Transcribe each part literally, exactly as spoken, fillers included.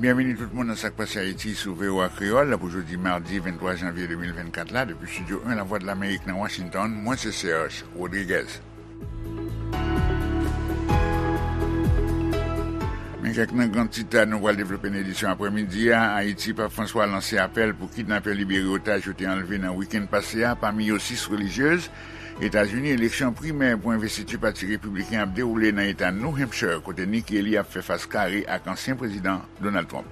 Byenveni tout moun nan Sa k Pase Ayiti sou V O A Kreyòl pou jodi madi venntwa janvye de mil vennkat la, depi Estidyo en Lavwadlamerik nan Washington, mwen se Serge Rodriguez. Men kèk nan gran tit nou pral devlope nan edisyon aprèmidi a. Ayiti, Pap Franswa lanse apèl pou kidnapè libere otaj yo te anlve nan wikenn pase a, pami yo sis relijyez. Etazini, eleksyon primè pou envestiti Pati Repibliken ap dewoule nan eta New Hampshire, kote Nikki Haley ap fè fas kare ak ansyen prezidan Donald Trump.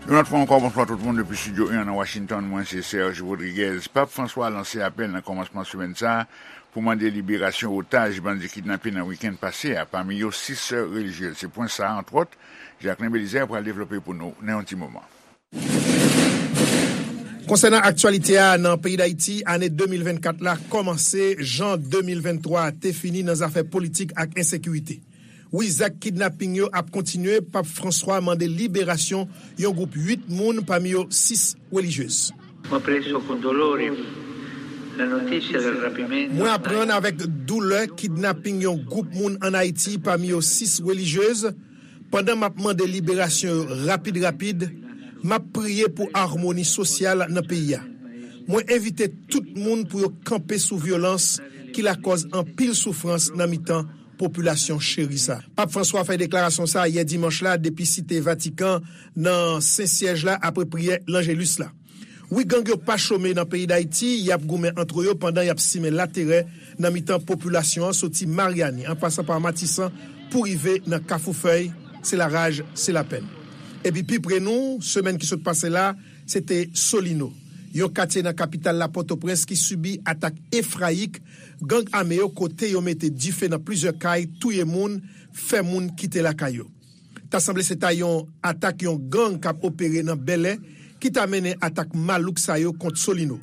Yon lòt fwa ankò, bonswa tout moun depi Estidyo en nan Washington, mwen se Serge Rodriguez. Pap Franswa lanse apèl nan kòmansman semèn sa a pou mande liberasyon otaj bandi kidnape nan wikenn pase a, pami yo sis sè relijyez. Se pwen sa a, antwòt, Jacquelin Belizaire pral devlope pou nou nan yon ti moman. Konsènan aktyalite a nan peyi Dayiti, ane de mil vennkat la kòmanse jan de mil venntwa te fini nan zafè politik ak ensekirite. Wi, zak kidnaping yo ap kontinye. Pap Franswa mande liberasyon yon gwoup uit moun, pami yo sis relijyez. Ho preso con dolore la notizia del rapimento. Mwen aprann avèk doulè kidnaping yon gwoup moun ann Ayiti, pami yo sis relijyez. Pandan m ap mande liberasyon yo rapid rapid, m ap priye pou amoni sosyal nan peyi a. Mwen envite tout moun pou yo kanpe sou vyolans ki lakòz anpil soufrans nan mitan popilasyon cheri sa. Pap Franswa fè deklarasyon sa a yè dimanch la depi Site Vatikan, nan Sen Syèj la, apre priyè Lanjelis la. Wi, gang yo pa chome nan peyi Dayiti, y ap goumen antre yo pandan y ap simen laterè nan mitan popilasyon an, soti Maryani an pasan pa Matisan pou rive nan Kafou Fèy. Se laraj, se lapèn. Epi pi pre nou, semèn ki sot pase la, se te Solino, yon katye nan kapital la, Pòtoprens, ki sibi atak efrayik gang ame yo, kote yo mete dife nan plizyè kay, touye moun, fè moun kite lakay yo. Ta sanble se ta yon atak yon gang k ap opere nan Bèlè ki ta mennen atak malouk sa yo kont Solino.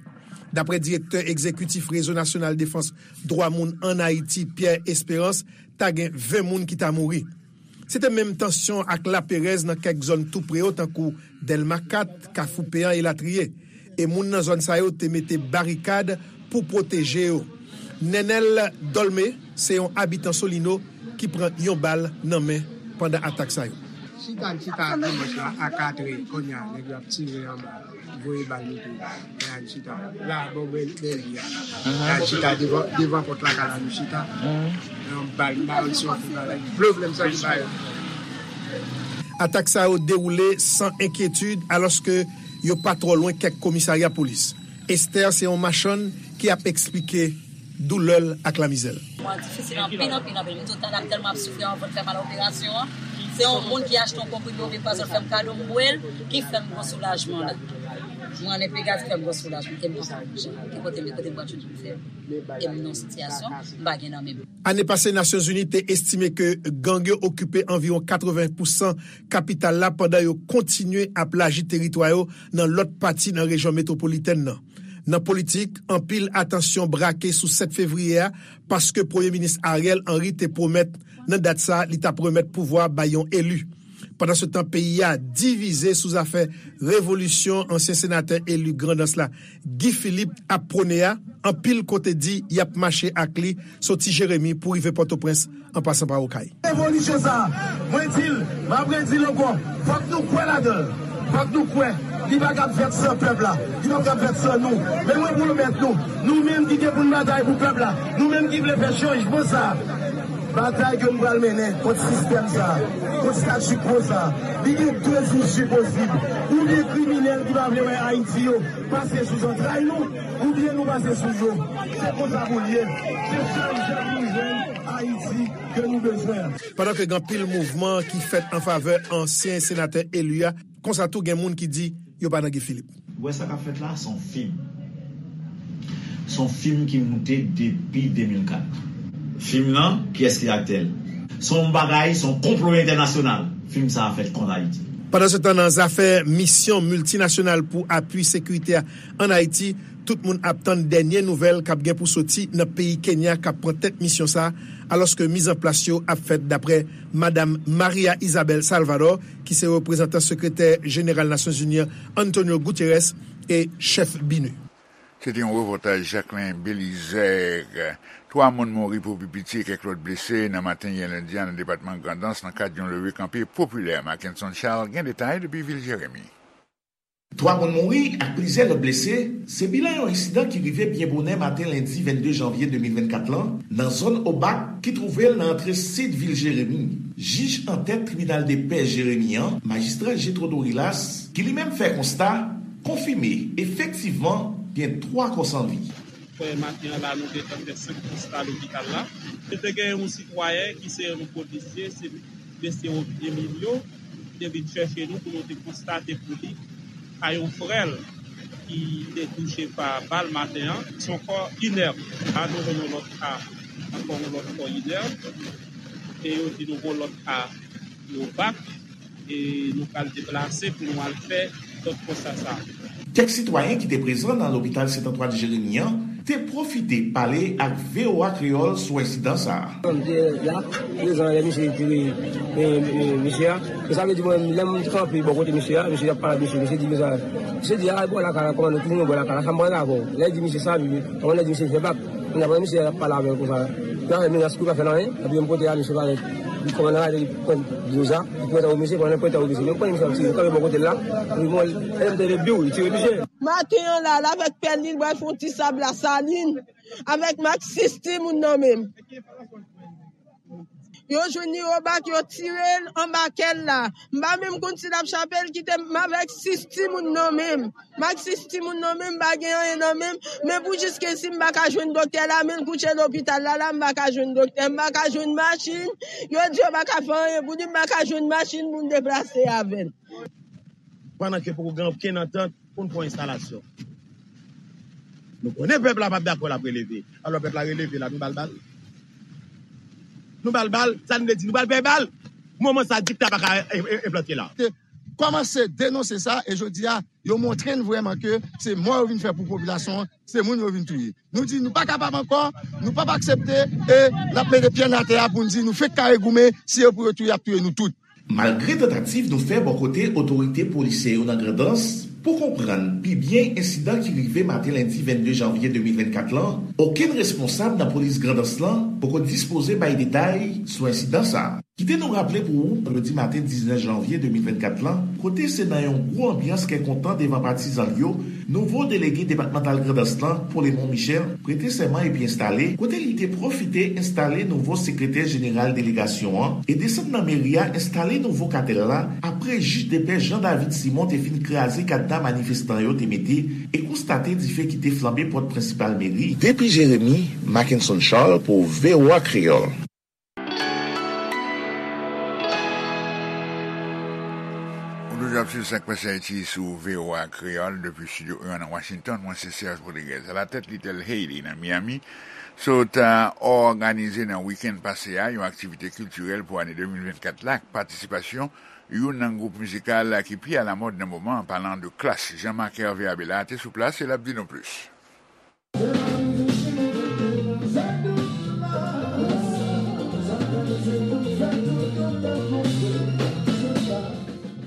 Daprè direktè egzekitif Rezo Nasyonal Defans Dwa Moun ann Ayiti, Pierre Espérance, ta gen ven moun ki ta mouri. Se te menm tansyon ak laperèz nan kèk zòn tou pre yo, tankou Dèlma kat, Kafou Peyan, elatriye. E moun nan zòn sa yo te mete barikad pou pwoteje yo. Nenel Dolme se yon abitan Solino ki pran yon bal nan men pandan atak sa yo. Chita, n chita dimanch la a katrè, kounye a, nèg yo ap tire anba, voye bal, mete bal. Kounye a, n chita la, bò bèl, bèl vi a. Kounye a, n chita devan, devan pòt lakay la, nou chita. Yon bal, m pa konn si yon fout bagay. Pwoblèm sa ki pa yo. Atak sa yo dewoule san enkyetid, alòske yo pa twò lwen kèk komisarya polis. Esther se yon machann ki ap eksplike doulè l ak lamizè l. Mwen difisil anpil, anpil, anpil. M di w talè m tèlman ap soufri, anvan m fè mal operasyon an. Se yon moun ki achte yon konprime oubyen pwazon, l fè m kado, m bwè l, ki fè m gwo soulajman la. Mwen ann Enpegas, fè m gwo soulajman, ke m pa ka bouje. Ki kote m ye, kote m pral jwenn pou m fè? E m nan yon sitiyasyon, m pa gen nan men m. Ane pase, Nasyonzini te estime ke gang yo okipe anviwon katreven pousan kapital la, pandan yo kontinye ap laji teritwa yo nan lòt pati nan rejyon metwopolitèn nan. Nan politik, anpil atansyon brake sou sèt fevriye a, paske Premye Minis Ariel Henry te pwomèt nan dat sa a li t ap remèt pouvwa bay yon eli. Pandansetan, peyi a divize sou zafè revolisyon ansyen senatè eli Grandans la, Guy Philippe, ap pwone a. Anpil kote di y ap mache ak li soti Jeremi pou rive Pòtoprens, an pasan pa Okay. Revolisyon sa a, mwen di l, m ap redi l ankò, fòk nou kwè ladan l. Fòk nou kwè. Li pa kab fèt san pèp la. Li pa kab fèt san nou. Men mwen pwomèt nou, nou menm ki gen pou n batay pou pèp la, nou menm ki vle fè chanjman sa a, batay ke nou pral mennen kont sistèm sa a, kont statu quo sa a, li gen de isi posib. Oubyen kriminèl ki pa vle wè Ayiti yo pase sou zantray nou, oubyen nou pase sou yo. Se konsa pou l ye. Se sèl jan pou nou jwenn Ayiti ke nou bezwen an. Pandan ke gen anpil mouvman ki fèt an favè ansyen senatè eli a, konsa tou gen moun ki di yo pa nan Guy Philippe. Ou wè sa k ap fèt la, se yon fim. Se yon fim ki moute depi de mil kat. Fim nan, kiyès ki aktè l? Se yon bagay, se yon konplo entènasyonal. Fim sa a fèt kont Ayiti. Pandansetan, nan zafè misyon miltinasyonal pou apui sekirite a ann Ayiti, tout moun ap tann dènye nouvèl k ap gen pou soti nan peyi Kenya k ap pran tèt misyon sa a, alòske mizanplas yo ap fèt daprè Madam Maria Isabel Salvador, ki se reprezantan sekretè jeneral Nasyonzini an, Antonio Guterres, e chèf BINUH. Se te yon repòtaj Jacquelin Belizaire. Twa moun mouri pou pi piti e kèk lòt blese nan maten yè lendi a nan depatman Grandans nan kad yon leve kanpe popilè. Mackenson Charles gen detay depi vil Jeremi. Twa moun mouri ak plizyè lòt blese, se bilan yon ensidan ki rive byen bonè maten lendi vennde janvye de mil vennkat lan, nan zòn Obak, ki twouve l nan antre sid vil Jeremi. Jij antèt tribinal de pè Jeremi an, majistra Jetro Dorilas, ki li menm fè konsta, konfime efektivman gen twa kò san vi. Frè, maten an la, nou gentan fè senk konsta lopital la. Nou te gen yon sitwayen ki se yon polisye, se mesye Emilio, ki te vin chèche nou pou nou te konstate pou li ka yon frè l ki te touche pa bal maten an. Se yon kò inèb. La, nou jwenn yon lòt ka, ankò yon lòt kò inèb. E yo di nou gon lòt ka yo bak. E nou pral deplase pou nou al fè lòt konsta sa. Kèk sitwayen ki te prezan nan lopital Sent Antwàn Jeremi an te pwofite pale ak V O A Kreyòl sou ensidan sa a. M te la, prezan lè misye tire, e, e, misye a. E sa vle di mwen, lè m kanpe bò kote misye a, misye ap pale ak misye, misye di konsa, misye di, "A, bò lakay la, kòmandan, tounen bò lakay la, sa m pral avè w." Lè l di misye sa, li, kòmandan di misye fè bak. Kounya, pandan misye ap pale avè l konsa, li pa fè menas, li pa fè l anyen. Epi menm kote a, misye parèt. Li kòmandan la, li pran dlo sa, li pran tan pou misye, pandan l pran tan pou misye, li pran misye ap tire, li kanpe bò kote l la. Epi bon, lè m tande biw, li tire misye. Maten an la, l avèk pèl li, l pral fè yon ti sab Lasalin, avèk maksis timoun nan men l. Yo jwenn li obak, yo tire l anba kè l la. M pa menm konn si l ap chape l, kite m avèk sis timoun nan men m. M ak sis timoun nan men m, m pa gen anyen nan men m. Men pou jiskaske m pa ka jwenn doktè la, men l kouche lopital la, la, m pa ka jwenn doktè, m pa ka jwenn machin. Yo di yo pa ka fè anyen pou li, m pa ka jwenn machin pou m deplase avè l. Pandan ke poko gen okenn antant pou n fè yon enstalasyon. Nou konnen pèp la p ap dakò, l ap releve. Alò, pèp la releve la, nou ba l bal. Nou ba l bal, sa nou vle di, nou ba l pè bal. Moman sa, dikta pa ka e, e, enplante la. Te kòmanse denonse sa, e jodi a, yo montre n vrèman ke se mò yo vin fè pou popilasyon an, se moun yo vin touye. Nou di nou pa kapab ankò, nou p ap aksepte, e n ap mete pye n atè a pou n di nou fenk kare goumen, si yo pou yo touye, y ap touye nou tout. Malgre tantativ nou fè bò kote otorite polisyè yo nan Grandans pou konprann pi byen ensidan ki rive maten lendi vennde janvye de mil vennkat lan, okenn responsab nan polis Grandans lan poko dispoze bay detay sou ensidan sa a. Kite nou raple pou ou, vandredi maten diznèf janvye de mil vennkat lan, kote se nan yon gwo anbyans kè kontan devan patizan l yo, nouvo delege depatmantal Grandans lan, Polemon Michel, prete sèman epi enstale, kote li te pwofite enstale nouvo sekretè jeneral delegasyon an e desann nan meri a enstale nouvo katèl la, apre jij de pè Jean David Simon te fin kraze kadna manifestan yo te mete e konstate dife ki te flanbe pòt prensipal meri. Depi Jeremi, Mackenson Charles pou V O A Kreyòl. Ou toujou ap swiv Sak Pase Ayiti sou V O A Kreyòl depi Estidyo en nan Washington. Mwen se Serge Rodriguez. Alatèt Little Haiti nan Miami, sot òganize nan wikenn pase a yon aktivite kiltirèl pou ane de mil vennkat la ak patisipasyon youn nan gwoup mizikal ki pi alamòd nan moman an, palan de Klass. Jean Marc Hervé Abela te sou plas e l ap di nou plis.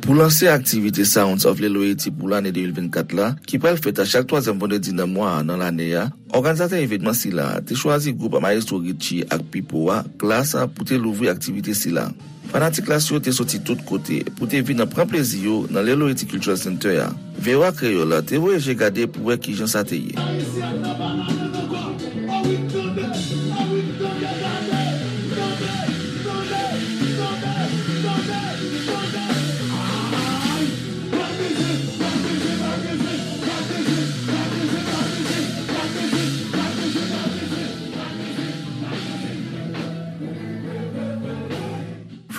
Pou lanse aktivite Sounds of Lil Haiti pou lane de mil vennkat la, ki pral fèt a chak twazyèm vandredi nan mwa a nan lane a, òganizatè evènman sila a te chwazi gwoup Maestro Richie ak Pipo a, Klass, pou te louvri aktivite sila. Fanatik Klass yo te soti tout kote pou te vin nan pran plezi yo nan Lil Haiti Cultural Center a. V O A Kreyòl te voye je gade pou wè kijan sa te ye.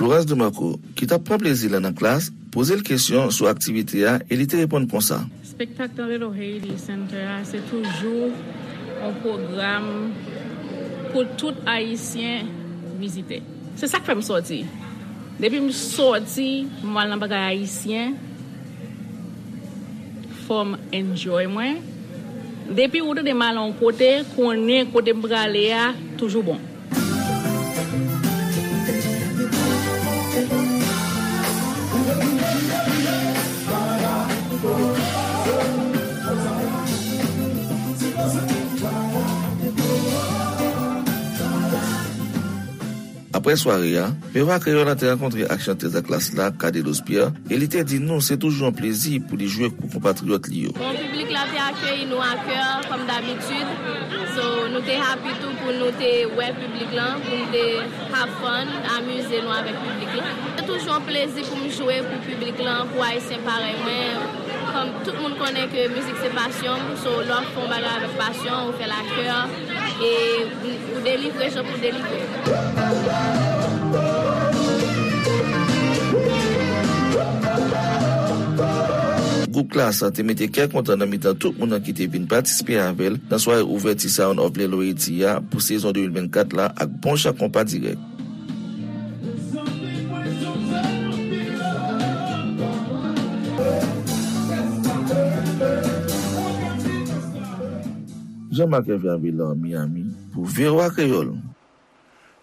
Florence Demarco, ki t ap pran plezi l nan Klass, poze l kesyon sou aktivite a e li te reponn konsa. Espektak nan Little Haiti Center a, se toujou yon pwogram pou tout Ayisyen vizite. Se sa k fè m sòti. Depi m sòti, m al nan bagay ayisyen, fò m enjoy mwen. Depi ou tande m al yon kote, konnen kote m prale a toujou bon. Apre sware a, V O A Kreyòl la te rankontre ak chantèz Atlas la, Cadelos Pierre, e li te di nou se toujou yon plezi pou li jwe pou konpatriyòt li yo. Bon, piblik la te akeyi nou ak kè, kòm dabitid. So, nou te happy tou pou nou te wè piblik lan, pou nou te have fun, amize nou avèk piblik lan. Se toujou yon plezi pou m jwe pou piblik lan, pou Ayisyen parèy mwen. Kòm tout moun konnen ke mizik se pasyon m, so lè w ap fè yon bagay avèk pasyon, ou fè l ak kè, e ou delivre jan pou delivre. Gwoup Klass te mete kè kontan nan mitan tout moun nan ki te vin patisipe avè l nan sware ouvèti Sound of Lelo Haiti a pou sezon de mil vennkat la ak bon jan konpa dirèk. Jean-Marc Hervé Abélard, Miami, pou V O A Kreyòl.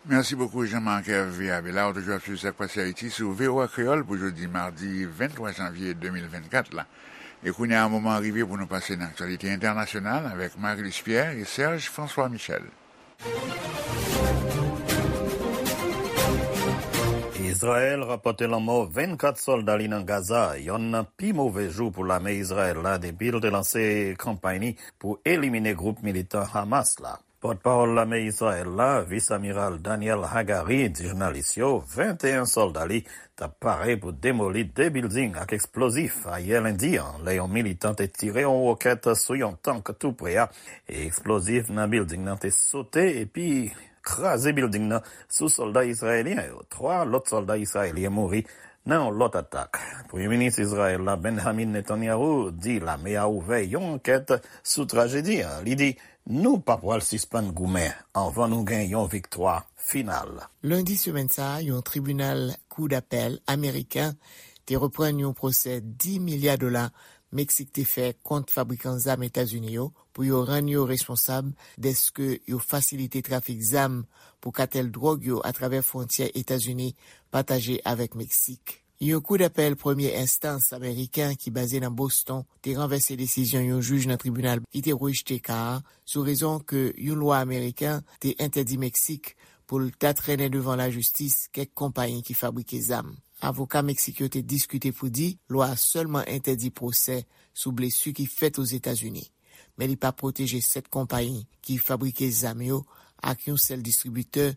Merci beaucoup, Jean-Marc Hervé Abélard. Ou toujou ap swiv Sa k Pase Ayiti sou V O A Kreyòl pou jodi madi venntwa janvye de mil vennkat la. E kounye a, moman an rive pou nou pase nan aktyalite entènasyonal avèk Marie-Luce Pierre e Serge François Michel. Izrayèl rapòte lanmò vennkat sòlda li nan Gaza, yonn nan pi move jou pou lame Izrayèl la depi l te lanse kanpay li pou elimine gwoup militan Hamas la. Pòtpawòl lame Izrayèl la, Vis Amiral Daniel Hagari, di jounalis yo venteyen sòlda li t ap pare pou demoli de bilding ak eksplozif ayè lendi an, lè yon militan te tire yon wokèt sou yon tank tou pre a, e eksplozif nan bilding nan te sote epi kraze bilding nan sou sòlda izrayelyen yo. Twa lòt sòlda izrayelyen mouri nan yon lòt atak. Premye minis Izrayèl la, Benjamin Netanyahu, di lame a ouvè yon ankèt sou trajedi an. Li di, nou pa pral sispann goumen anvan nou gen yon viktwa final. Lendi semèn sa a, yon tribinal kou dapèl ameriken te reprann yon pwosè dis milya dola Meksik te fè kont fabrikan zam Etazini yo pou yo rann yo responsab dèske yo fasilite trafik zam pou katèl dwòg yo atravè fwontyè Etazini pataje avèk Meksik. Yon kou dapèl premye enstans ameriken ki baze nan Boston te ranvèse desizyon yon jij nan tribinal ki te rejte ka a sou rezon ke yon lwa ameriken te entèdi Meksik pou l ta trennen devan lajistis kèk konpayi ki fabrike zam. Avoka Meksik yo te diskite pou di lwa a sèlman entèdi pwosè sou blesi ki fèt Ozetazini, men li pa pwoteje sèt konpayi ki fabrike zam yo ak yon sèl distribitè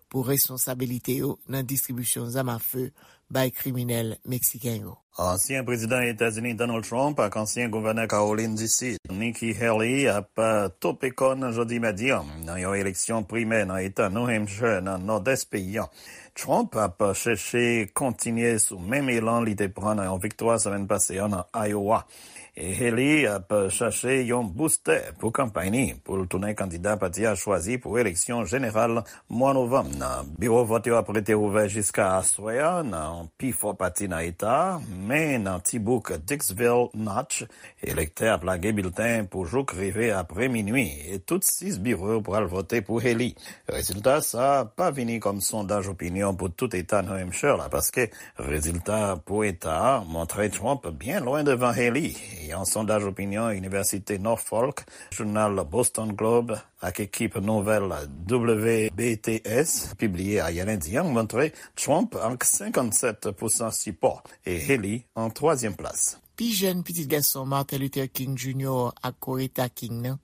pou responsabilite yo nan distribisyon zam afe bay kriminèl meksiken yo. Ansyen prezidan Etazini Donald Trump ak ansyen gouvènè Kawolin di Sid, Nikki Haley, ap, eh, tope kòn jodi madi an nan yon eleksyon primè nan eta New Hampshire, nan nòdès peyi an. Trump ap chèche kontinye sou menm elan li te pran nan yon viktwa semèn pase a nan Iowa. E Haley ap chache yon boustè pou kanpay ni pou l tounen kandida pati a chwazi pou eleksyon jeneral mwa novanm nan. Biwo vòt yo ap rete ouvè jiska aswè a nan pi fò pati nan eta a, men nan ti bouk Dixville Notch, elektè ap lage bilten pou jouk rive apre minui, e tout sis biwo yo pral vote pou Haley. Rezilta sa a pa vini kòm sondaj opinyon pou tout eta New Hampshire la, paske rezilta pou eta a montre Trump byen lwen devan Haley. Yon sondaj opinyon Inivèsite Norfolk, jounal Boston Globe ak ekip nouvèl W B T S pibliye ayè lendi an montre Trump ak senkannsèt pousan sipò e Haley an twazyèm plas. Pi jèn pitit gason Martin Luther King Junior ak Coretta King nan,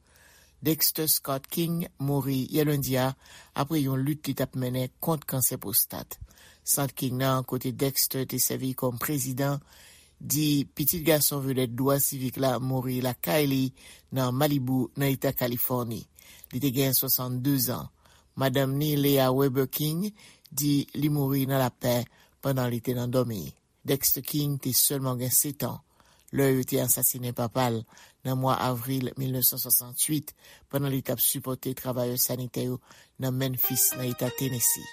Dexter Scott King, mouri yè lendi a apre yon lit li t ap mennen kont kansè pwostat. Sant King nan, kote Dexter te sèvi kòm prezidan, di pitit gason vedèt dwa sivik la mouri lakay li nan Malibu, nan eta Kalifòni. Li te gen swasanndezan. Madanm ni, Leah Weber King, di li mouri nan lapè pandan li te nan dòmi. Dexter King te sèlman gen setan lè yo te asasinen papa l nan mwa avril mil nèf san swasantuit, pandan li t ap sipòte travayè sanitè yo nan Memphis, nan eta Tennessee.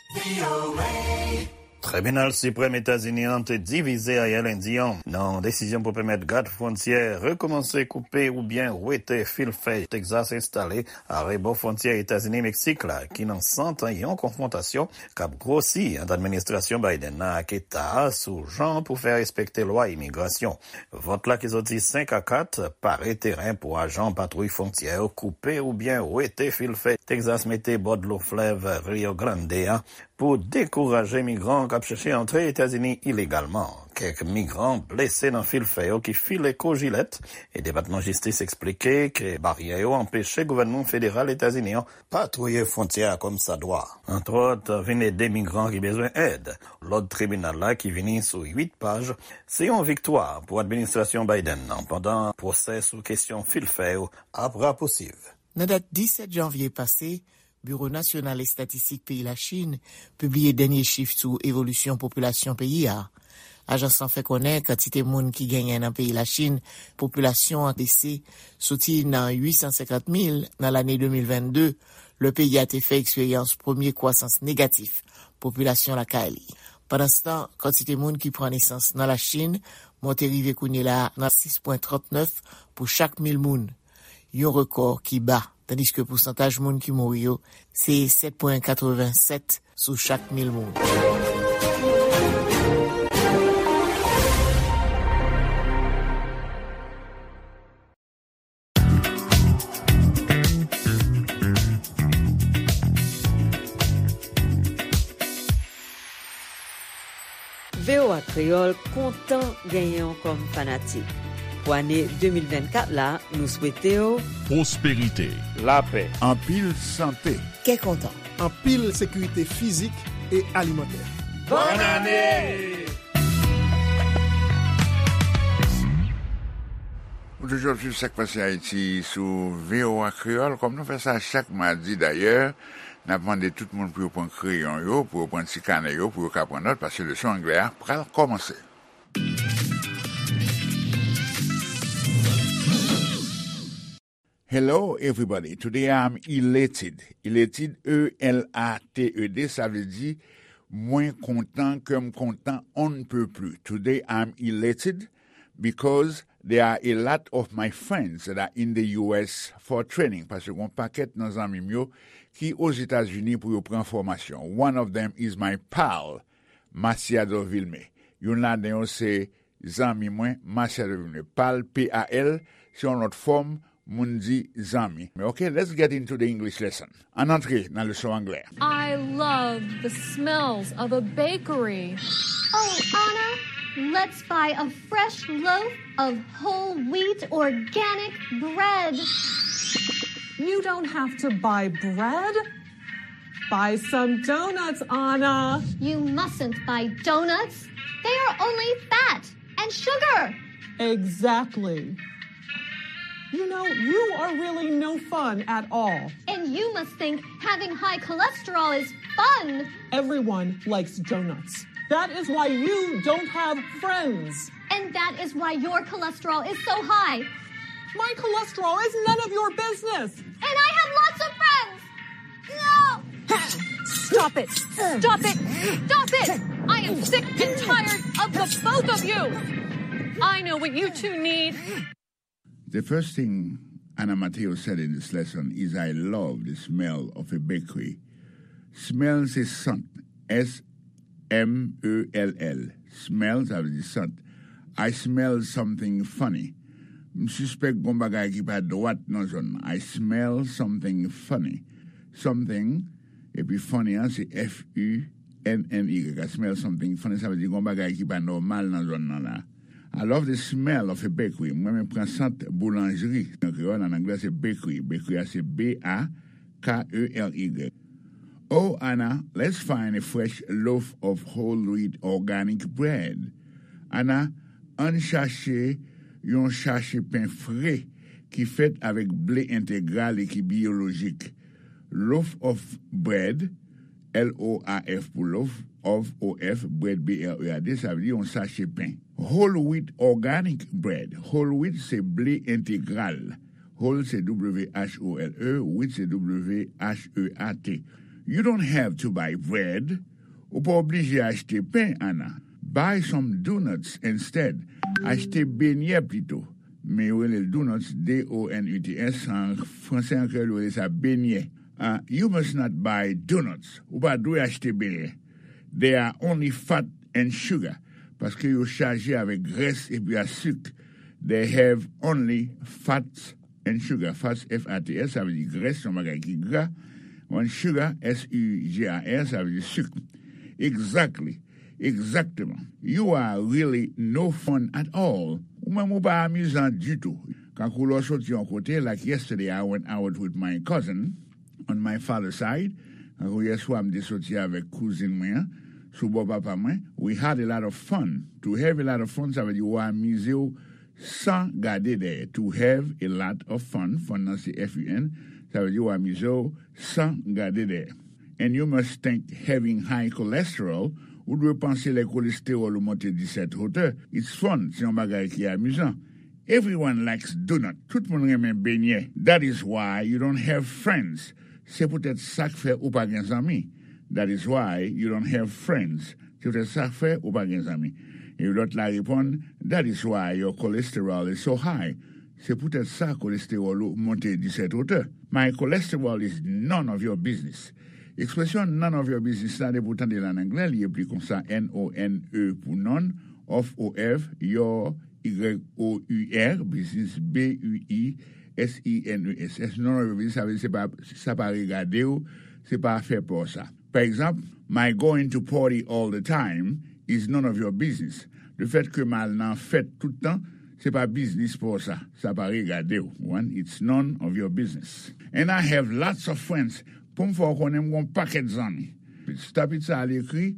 Tribinal Siprèm Etazini an te divize ayè lendi an nan yon desizyon pou pèmèt gad fwontyè rekòmanse koupe oubyen wete fil fè Texas enstale arebò fwontyè Etazini-Meksik la, ki nan sant yon konfwontasyon k ap gwosi ant administrasyon Biden nan ak eta a sou jan pou fè respekte lwa imigrasyon. Vòt la ki soti senk a kat pare teren pou ajan patwouy fwontyè yo koupe oubyen wete fil fè Texas mete bò dlo flèv Rio Grande a Pou dekouraje migran k ap chèche antre Etazini ilegalman, kèk migran blese nan fil fè yo ki file kou jilèt, e Depatman Jistis eksplike ke baryè yo anpeche gouvènman federal Etazini an patwouye fwontyè a kòmsadwa. Antwòt, vin ede migran ki bezwen èd. Lòd tribinal la ki vini sou uit paj, se yon viktwa pou administrasyon Biden nan, pandan pwosè sou kesyon fil fè yo ap rapousiv. Nan dat disèt janvye pase, Biwo Nasyonal Estatistik peyi Lachin pibliye dènye chif sou evolisyon popilasyon peyi a. Ajans lan fè konnen kantite moun ki genyen nan peyi Lachin, popilasyon an bese soti nan uit san senkant mil nan lane de mil vennde, lè peyi a te fè eksperyans premye kwasans negatif popilasyon lakay li. Pandanstan, kantite moun ki pran nesans nan Lachin monte rive kounye la a nan sis pwen trannèf pou chak mil moun, yon rekò ki ba, tandiske pousantaj moun ki mouri yo se sèt pwen katrevennsèt sou chak mil moun. V O A Kreyòl kontan genyen w kòm fanatik. Pou ane de mil vennkat la, nou swete w pwosperite, lapè, anpil sante, kè kontan, anpil sekirite fizik e alimantè. Bòn ane! Ou toujou ap swiv Sa k Pase Ayiti sou V O A Kreyòl, kòm nou fè sa chak madi dayè. N ap mande tout moun pou yo pran kreyon yo, pou yo pran ti kanè yo, pou yo ka pran nòt, paske leson anglè a pral kòmanse. Hello, everybody. Today I'm elated. Elated, E L A T E D, sa vle di, mwen kontan, kè m kontan, on ne peut plus. Today I'm elated because there are a lot of my friends that are in the U S for training. Paske gon pakèt nan zanmi m yo ki Ozetazini pou yo pran fòmasyon. One of them is my pal, Masiado Vilmé. Youn ladan yo se zanmi mwen, Masiado Vilmé. Pal, P A L, se yon lòt fòm moun di zanmi. Ok, let's get into the English lesson. Ann antre nan leson anglè. I love the smells of a bakery. Oh, Anna, let's buy a fresh loaf of whole wheat organic bread. You don't have to buy bread. Buy some donuts, Anna. You mustn't buy donuts. They are only fat and sugar. Exactly. You know, you are really no fun at all. And you must think having high cholesterol is fun. Everyone likes donuts. That is why you don't have friends. And that is why your cholesterol is so high. My cholesterol is none of your business. And I have lots of friends. No! Stop it! Stop it! Stop it! I am sick and tired of the both of you! I know what you two need. The first thing Anna Mateo said in this lesson is, "I love the smell of a bakery." Smell se sant. S M E L L. Smell, sa vle di sant. I smell something funny. M sispèk gon bagay ki pa dwat nan zòn nan. I smell something funny. Something, epi funny an, se F U N N Y. I smell something funny, sa vle di gon bagay ki pa nòmal nan zòn nan la. I love the smell of a bakery. Mwen renmen pran sant boulanjri. An kreyòl, an anglè, se bakery. Bakery a se B A K E R Y. Oh, Anna, let's find a fresh loaf of whole wheat organic bread. Anna, ann chache yon chache pen fre ki fèt avèk ble entegral e ki biyolojik. Loaf of bread, L O A F pou loaf, of, O F, bread, B R E A D, sa vle di yon sache pen. Whole wheat organic bread. Whole wheat se ble entegral. Whole se W H O L E, wheat se W H E A T. You don't have to buy bread. Ou pa oblije achte pen, Anna. Buy some donuts instead. Achte benyè pito. Men yo rele l donuts, D O N U T S, an franse, an kreyòl, yo rele sa benyè. Ah, you must not buy donuts. Ou pa dwe achte benyè. They are only fat and sugar. Paske yo chaje avèk grès epi a sik. They have only fats and sugar. Fats, F A T S, sa vle di grès, yon bagay ki gra. When sugar, S U G A R, sa vle di sik. Exactly. Egzakteman. You are really no fun at all. Ou menm ou pa amizan ditou. Kankou lè w soti yon kote, like yesterday I went out with my cousin on my father's side. Kankou yèswa m te soti avèk kouzin mwen an, sou bò papa mwen. We had a lot of fun. To have a lot of fun, sa vle di ou amize w san gade dèyè. To have a lot of fun, fun nan se F U N, sa vle di w amize w san gade dèyè. And you must think having high cholesterol, ou dwe panse lè kolestewòl ou monte disèt wotè, it's fun, se yon bagay ki amizan. Everyone likes donut, tout moun renmen benyè. That is why you don't have friends. Se poutèt sa k fè ou pa gen zanmi. That is why you don't have friends. Se poutèt sa k fè ou pa gen zanmi. E lòt la reponn, that is why your cholesterol is so high. Se poutèt sa kolestewòl ou monte disèt wotè. My cholesterol is none of your business. Ekspresyon none of your business la, depi w tande l an anglè, li ekri konsa, N O N E pou none, of, O F, your, Y O U R, business, B U I S I N E S S. None of your business, sa vle di se pa, sa pa regade w, se pa afè pa w sa. Pa egzanp, my going to party all the time is none of your business. Lefèt ke m al nan fèt tout tan, se pa biznis pa w sa. Sa pa regade w. One, it's none of your business. And I have lots of friends. Pou m fè w konnen m gen yon pakèt zanmi. Stop it sa al ekri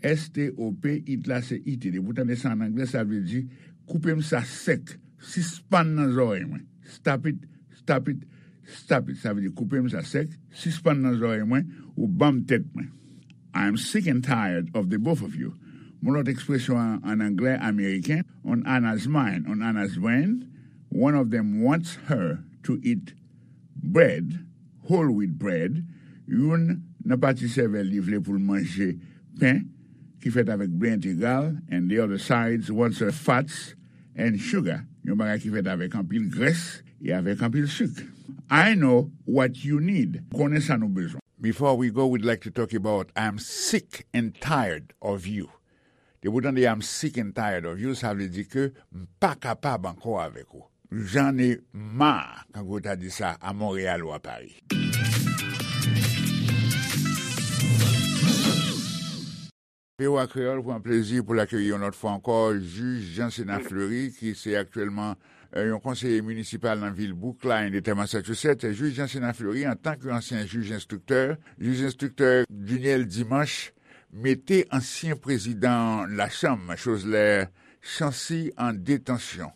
S T O P, it la se I T. Depi w tande sa an anglè, sa vle di koupe m sa sèk. Sispann nan zòrèy mwen. Stop it, stop it, stop it. Sa vle di koupe m sa sèk, sispann nan zòrèy mwen, ou ban m tèt mwen. I'm sick and tired of the both of you. Yon lòt ekspresyon an, an anglè ameriken, on Anna's mind, on Anna's brain, one of them wants her to eat bread, whole wheat bread, youn nan pati sèvèl li vle pou l manje pen ki fèt avèk ble entegral, and the other side wants her fats and sugar, yon bagay ki fèt avèk anpil grès e avèk anpil sik. I know what you need. M konnen sa nou bezwen. Before we go, we'd like to talk about I'm sick and tired of you. Depi w tande I'm sick and tired of you, sa vle di ke m pa kapab ankò avèk ou. J'en ai marre, kankou yo ta di sa a Monreyal ou a Pari. V O A Kreyòl pran plezi pou l akeyi yon lòt fwa ankò jij Jean Sénat Fleury, ki se aktyèlman, eh, yon konseye minisipal nan vil Brookline, Eta Massachusetts. Jij Jean Sénat Fleury, antanke ansyen jij enstriktè, jij enstriktè Duniel Dimanche, mete ansyen prezidan Lachanm, Chosler Chancy, an detansyon.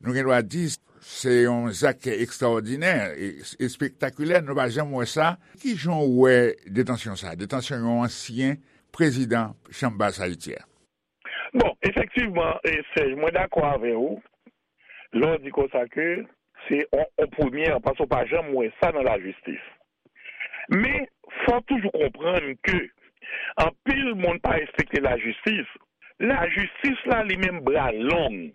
Nou gen dwa di, se yon zak ekstraòdinè e espektakilè, nou pa janm wè sa. Ki jan w wè detansyon sa? Detansyon yon ansyen prezidan Chanm Bas Ayiti a. Bon, efektivman, e, Serge, mwen dakò avè w lè w di konsa ke se on, on premyè, paske w pa janm wè sa nan lajistis. Men, fò w toujou konprann ke anpil moun pa respekte lajistis. Lajistis la, li menm, bra long.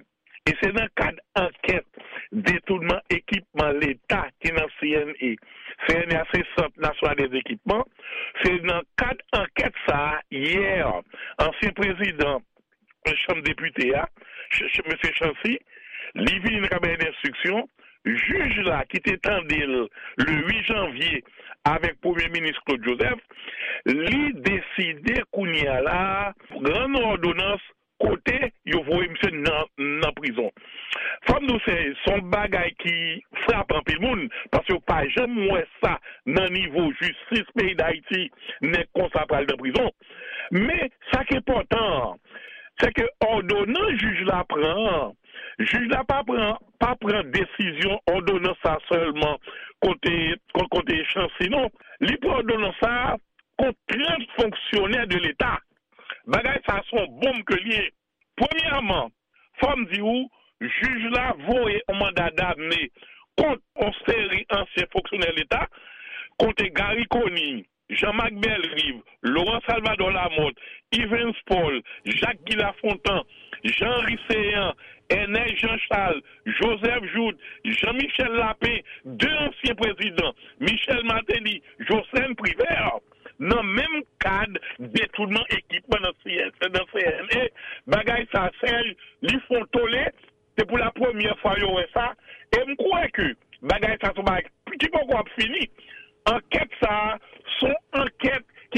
E se nan kad ankèt detounman ekipman Leta ki nan C N E. C N E a se Sant Nasyonal dè Ekipman. Se nan kad ankèt sa a, yè, ansyen prezidan Chanm Depite a, Ch-, Ch-, Mesye Chancy, li vini nan kabinè denstriksyon, jij la ki te tande l le uit janvye avèk Premye Minis Claude Joseph, li deside kounye a la a rann òdonans kote yo voye misye nan, nan prizon. Fò m di w, se, se yon bagay ki frape anpil moun, paske yo pa janm wè sa nan nivo jistis peyi Dayiti, nèg konsa pral nan prizon. Men, sa k enpòtan an, se ke òdonans jij la pran an, jij la pa pran, pa pran desizyon òdonans sa sèlman kote, ko-, kote Chancy non. Li pran òdonans sa kont trant fonksyonè de Leta. Bagay sa se yon bonm ke l ye. Premyèman, fò m di w, jij la voye yon manda damne kont yon seri ansyen fonksyonè Leta, kote Garry Conille, Jean Marc Bellerive, Laurent Salvador Lamothe, Evens Paul, Jacques Guy Lafontant, Jean Henry Céant, Ernest Jean Charles, Joseph Jouthe, Jean Michel Lapin, de ansyen prezidan, Michel Martelly, Jocelyn Privert, nan menm kad detounman ekipman nan C N, nan C N E, bagay sa, Serge, li fè yon tole, se pou la premyè fwa yo wè sa, e m kwè ke bagay sa se yon bagay ki poko ap fini. Ankèt sa a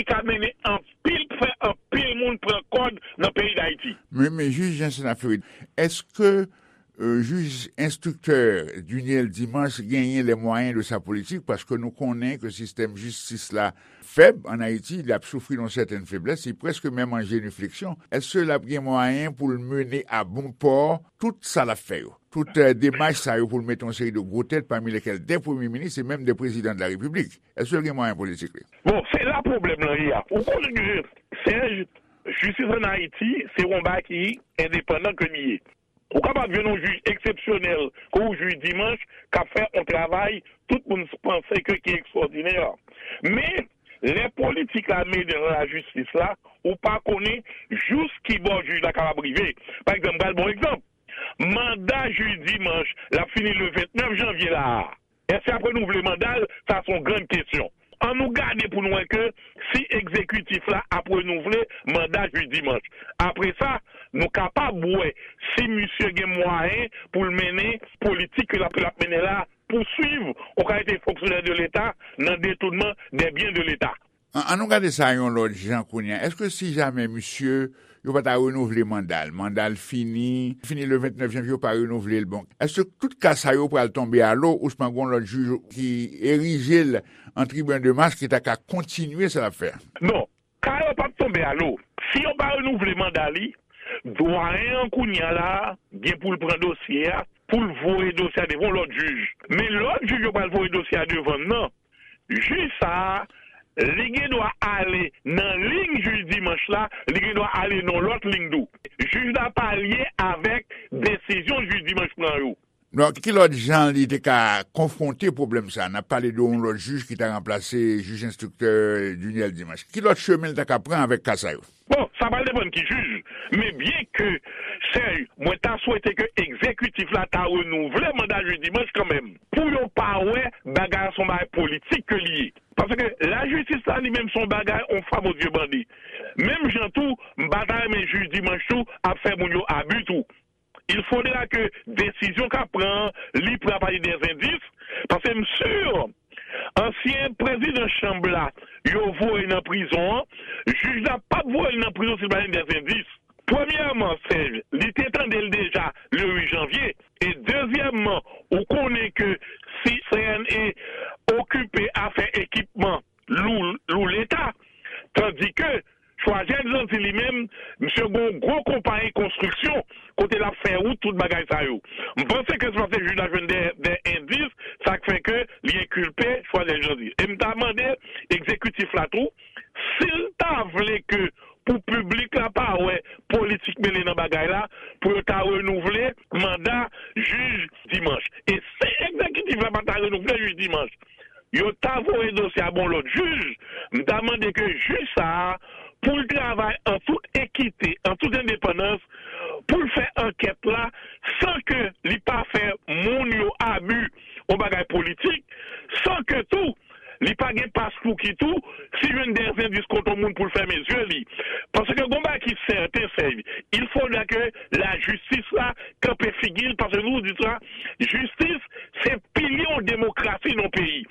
Ka mennen anpil, fè anpil moun pran kòd nan peyi Dayiti. Men, men jij Janssen Fleury, èske, euh, jij enstriktè Duniel Dimanche genyen les moyens de sa politique? Paske nou konnen ke sistèm jistis la fèb an Ayiti, l ap soufri yon sètèn feblès, li prèske menm an jenifleksyon. Èske l ap gen mwayen pou l mennen a bon pò tout sa l ap fè yo? Tout, euh, demach sa yo pou l mete yon seri de gwo tèt, pami lesquels des premiers ministres et même des présidents de la République. Èske l gen mwayen politik li? Bon, se la pwoblèm lan ye a. Ou konnen, Serge, jistis an Ayiti, se yon bagay ki endepandan ke li ye. Ou kapab jwenn yon jij eksepsyonèl, kon yon jij Dimanche, k ap fè yon travay tout moun panse ke ki ekstwòdinè. Men, lè politik la mennen nan lajistis la, ou pa konnen jous ki bò jij la kapab rive. Pa egzanp, m pral ba w egzanp. Manda jij Dimanche, l ap fini le vennèf janvye la a. Èske y ap renouvle manda l? Sa se yon grann kesyon. An nou gade pou nou wè ke si egzekitif la ap renouvle manda jij Dimanche. Apre sa, nou kapab wè si misye gen mwayen pou l mennen politik ke l ap, l ap mennen la, pouswiv yon kalite fonksyonè de Leta nan detounman de byen de Leta. An, an nou gade sa yon lòt jan kounye a. Èske si jamè misye, yo pa ta renouvle manda l, manda l fini, fini le vennèf janvye, yo pa renouvle l, bon, èske tout ka sa yo pral tonbe a lo, ouswa gon lòt jij ki erije l an tribinal de mas ki ta ka kontinye sa l ap fè a? Non, ka yo p ap tonbe a lo. Si yo pa renouvle manda li, dwayen an kounye a la gen pou l pran dosye a, pou l voye dosye a devan yon lòt jij. Men lòt jij yo pral voye dosye a devan l nan, jij sa a, li gen dwa ale nan liy jij Dimanche la, li gen dwa ale nan yon lòt liy tou. Jij la pa lye avèk desizyon jij Dimanche pran yo. Donk, ki lòt jan li te ka konfwonte pwoblèm sa a? N ap pale de yon lòt jij ki ta ranplase jij enstriktè Duniel Dimanche. Ki lòt chemen l ta ka pran avèk ka sa yo? Bon, sa pral depann ki jij. Men byen ke, Serge, mwen ta swete ke egzekitif la ta renouvle manda jij Dimanche kanmenm, pou yo pa wè bagay la se yon bagay politik ke li ye. Paske lajistis la li menm se yon bagay, on fwa Bondye bandi. Menm jan tou, m pa ta renmen jij Dimanche tou ap fè moun yo abi tou. Il faudra ke desizyon k ap pran an, li pran apati de zendis, paske m si ansyen prezidan chanm la, yo voye nan prizon an, jij la p ap voye l nan prizon si l pa gen de zendis. Premyèman, Serge, li te tande l deja le uit janvye. E dezyèmman, ou konnen ke si C N E okipe afè ekipman lou, lou Leta, tandike Choisel Jeandy li menm, misye gen yon gwo konpayi konstriksyon kote l ap fè wout, tout bagay sa yo. M panse ke se paske jij la jwenn de, de endis, sa k fè ke li enkilpe Choisel Jeandy. E m ta mande egzekitif la tou, si l ta vle ke pou piblik la pa wè politik mele nan bagay la, pou yo ta renouvle manda jij Dimanche. E si egzekitif la pa ta renouvle jij Dimanche, yo ta voye dosye a ba yon lòt jij, m ta mande ke jij sa a, pou l travay an tout ekite, an tout endepandans, pou l fè ankèt la, san ke li pa fè moun yo abi, yon bagay politik, san ke tou, li pa gen paspouki tou, si jwenn de zendis kont yon moun pou l fèmen zye li. Paske gon bagay ki sèten, Serge, il faudra ke lajistis la kanpe figi l, paske nou di sa, jistis se pilye yon demokrasi nan yon peyi.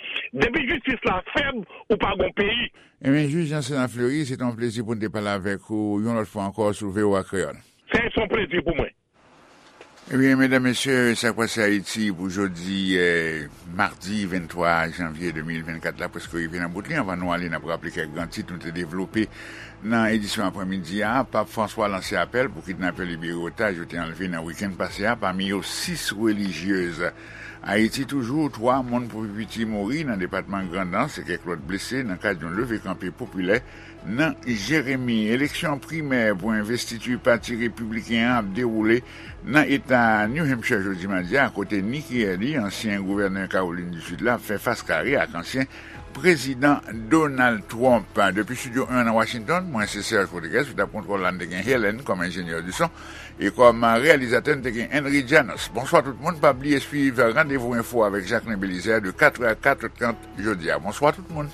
Depi jistis la fèb, ou pa gon peyi. Ebyen, jij Janssen Fleury, se te yon plezi pou n te pale avèk ou yon lòt fwa ankò sou V O A Kreyòl. Serge, se yon plezi pou mwen. Ebyen, medam, mesye, sa k pase Ayiti pou jodi, eh, madi venntwa janvye de mil vennkat la, prèske rive nan bout li. Anvan nou ale, n ap raple kèk gran tit nou te devlope nan edisyon aprèmidi a. Pap Franswa lanse apèl pou kidnapè libere otaj yo te anlve nan wikenn pase a, pami yo sis relijyez. Ayiti toujou, twa moun pou pi piti mouri nan depatman Grandans e kèk lòt blese nan kad yon leve kanpe popilè nan Jeremi. Eleksyon primè pou envestiti pati repibliken an ap dewoule nan eta New Hampshire jodi madi a, kote Nikki Haley, ansyen gouvènè Kawolin di Sid la, ap fè fas kare ak ansyen prezidan Donald Trump. Depi Estidyo en nan Washington, mwen se Serge Rodriguez, sou tab kontwòl la n te gen Helen kòm enjenyè di son, e kòm reyalizatè n te gen Henry Janos. Bonswa tout moun, pa bliye swiv Randevou Enfo avèk Jacquelin Belizaire de katrè a katrè trant jodi a. Bonswa tout moun.